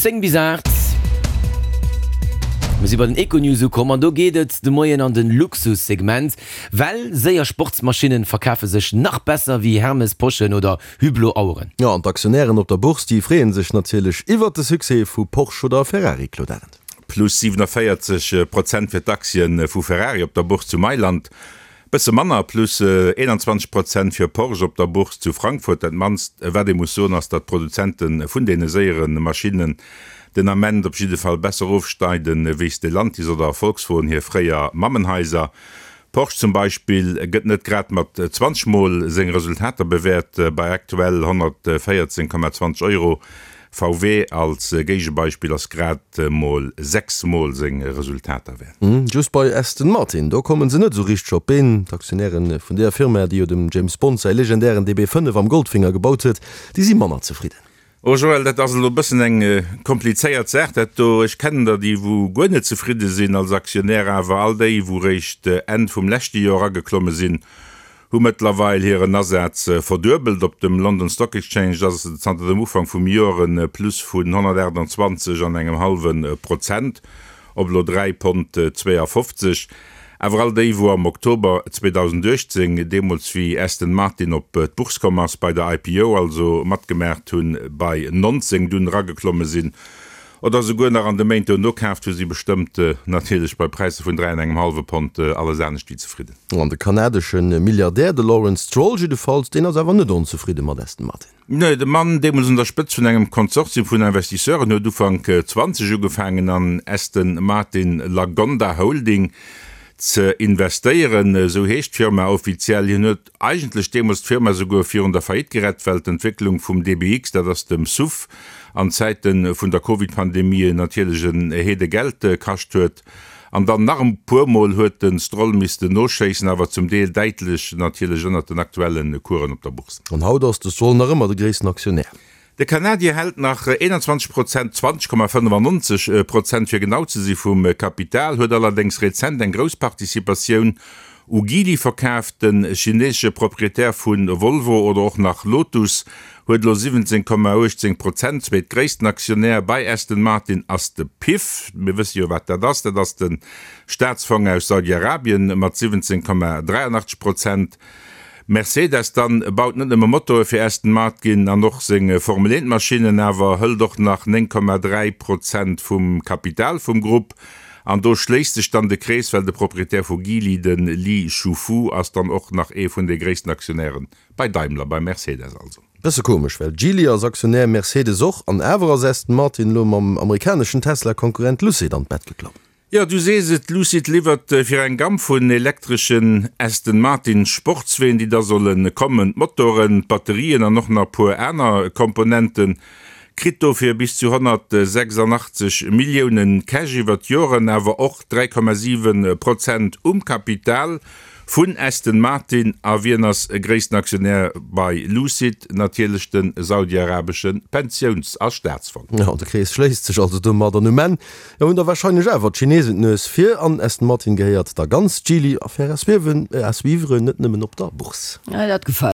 10 bis 8. Mir si bei den Econews ukomm an do geet et de Moien an den Luxussegment, well séier Sportsmaschinnen verkafe sech nach besser wéi Hermes Poschen oder Hublot Aueren. Jo, an d'Aktionären op der Bourse, déi freeën sech natierlech iwwert de Succès vu Porsche oder Ferrari, Claude Arend. Plus 47 Prozent fir d'Aktien vu Ferrari op der Bourse zu Mailand. Bësse manner, plus 21 Prozent fir Porsche op der Bourse zu Frankfurt. Dat mannst wat ee muss soen ass, datt d'Produzente vun deene séiere Maschinnen den Ament op jidde Fall besser ofschneiden wéi Stellantis oder Volkswogen, hir fréier Mammenhaiser. Porsche zum Beispill gëtt net grad mat 20 mol seng Resultater bewäert, bei aktuell 114,20 Euro VW als Géigebeispill ass grad mol 6 mol seng Resultater wäert. Just bei Aston Martin, do kommen se net esou richteg op d'Been. D'Aktionäre vun deeër Firma, déi jo dem James Bond säi legendären DB5 am Goldfinger gebaut huet, déi si manner zefridden. Oh Joël, dat ass elo e bëssen eng komplizéiert Saach dat do. Ech kennen der déi wou guer net zefridde sinn als Aktionär, awer all déi wou réischt Enn vum leschte Joer erageklomme sinn, hu mëttlerweil hiren Asaz verduebelt. Op dem London Stock Exchange ass et zanter dem Ufank vum Joer e Plus vun 128 an engem hallwe Prozent op elo 3 Pond 52. Awer all déi, wou am Oktober 2018, deemools wéi Aston Martin op d'Bourse komm ass, bei der IPO also matgemaacht hunn, bei 19 dunn erageklomme sinn, Oder souguer nach an de Méint dono kaaft, hu si bestëmmt natierlech bei Präisser vun 3 an engem hallwe Pond alles anescht wéi zefridden. An de kanadesche Milliardär, de Lawrence Stroll jiddefalls, deen ass awer net onzefridde mat Aston Martin. Nee, de Mann, deemools un der Spëtzt vun engem Konsortium vun Investisseuren, huet Ufank 20 ugefaangen an Aston Martin Lagonda Holding ze investéieren, esou heescht d'Firma offiziell. Hien huet Eigentlech deemools d'Firma souguer virun der Faillite gerett, well d'Entwécklung vum DBX, dat ass dem SUV, an Zäite vun der Covid-Pandemie natierlech en Heede Geld kascht huet. An dann nach e puer Mol huet de Stroll missten noschéissen, awer zum Deel däitlech natierlech ënnert den aktuelle Coursen op der Bourse. An haut ass de Stroll nach ëmmer de gréissten Aktionär. De Kanadier hält nach 21 Prozent, 20,95 Prozent fir genau ze si, vum Kapital, huet allerdéngs rezent eng grouss Participatioun u Geely verkaaft. De chineesesche Proprietär vu Volvo oder och nach Lotus huet elo 17,18 Prozent. Zweetgréissten Aktionär bei Aston Martin ass de PIF. Mir wësse jo wat dat ass, dat ass de Staatsfong aus Saudi-Arabien mat 17,83 Prozent. Mercedes dann baut net nëmme Motoe fir Aston Martgin an och seng Formel 1 Maschinnen, awer hëlt och nach 9,3 Prozent vum Kapital vum Grupp. An do schléisst sech dann de Krees, well de Proprietär vu Geely, de Li Shufu, ass dann och nach ee vun de gréissten Aktionäre bei Daimler, bei Mercedes also. Bësse komesch, well Geely ass Aktionär, Mercedes och, an awer ass Aston Martin elo mam amerikaneschen Tesla-Konkurrent Lucid an d'Bett geklomm. Jo, du sees et, Lucid liwwert fir eng Gamm vun elektreschen Aston Martin Sportsween, déi da solle kommen, d'Motoren, d'Batterien an och nach e puer aner Komponenten. Kritt dofir bis zu 186 Milliounen Cash iwwer d'Joren, awer och 3,7 Prozent um Kapital vun Aston Martin. A wien ass gréissten Aktionär bei Lucid? Natierlech de saudiarabesche Pensiouns a Staatsfong. Jo, de Krees schléisst sech also domat an um Enn Jo, hunn da wahrscheinlech awer d'Chinesen d'Nues vir an Aston Martin gehéiert da ganz Geely. Affaire à suivre, à suivre, net nëmmen op der Bourse. Dat gefält.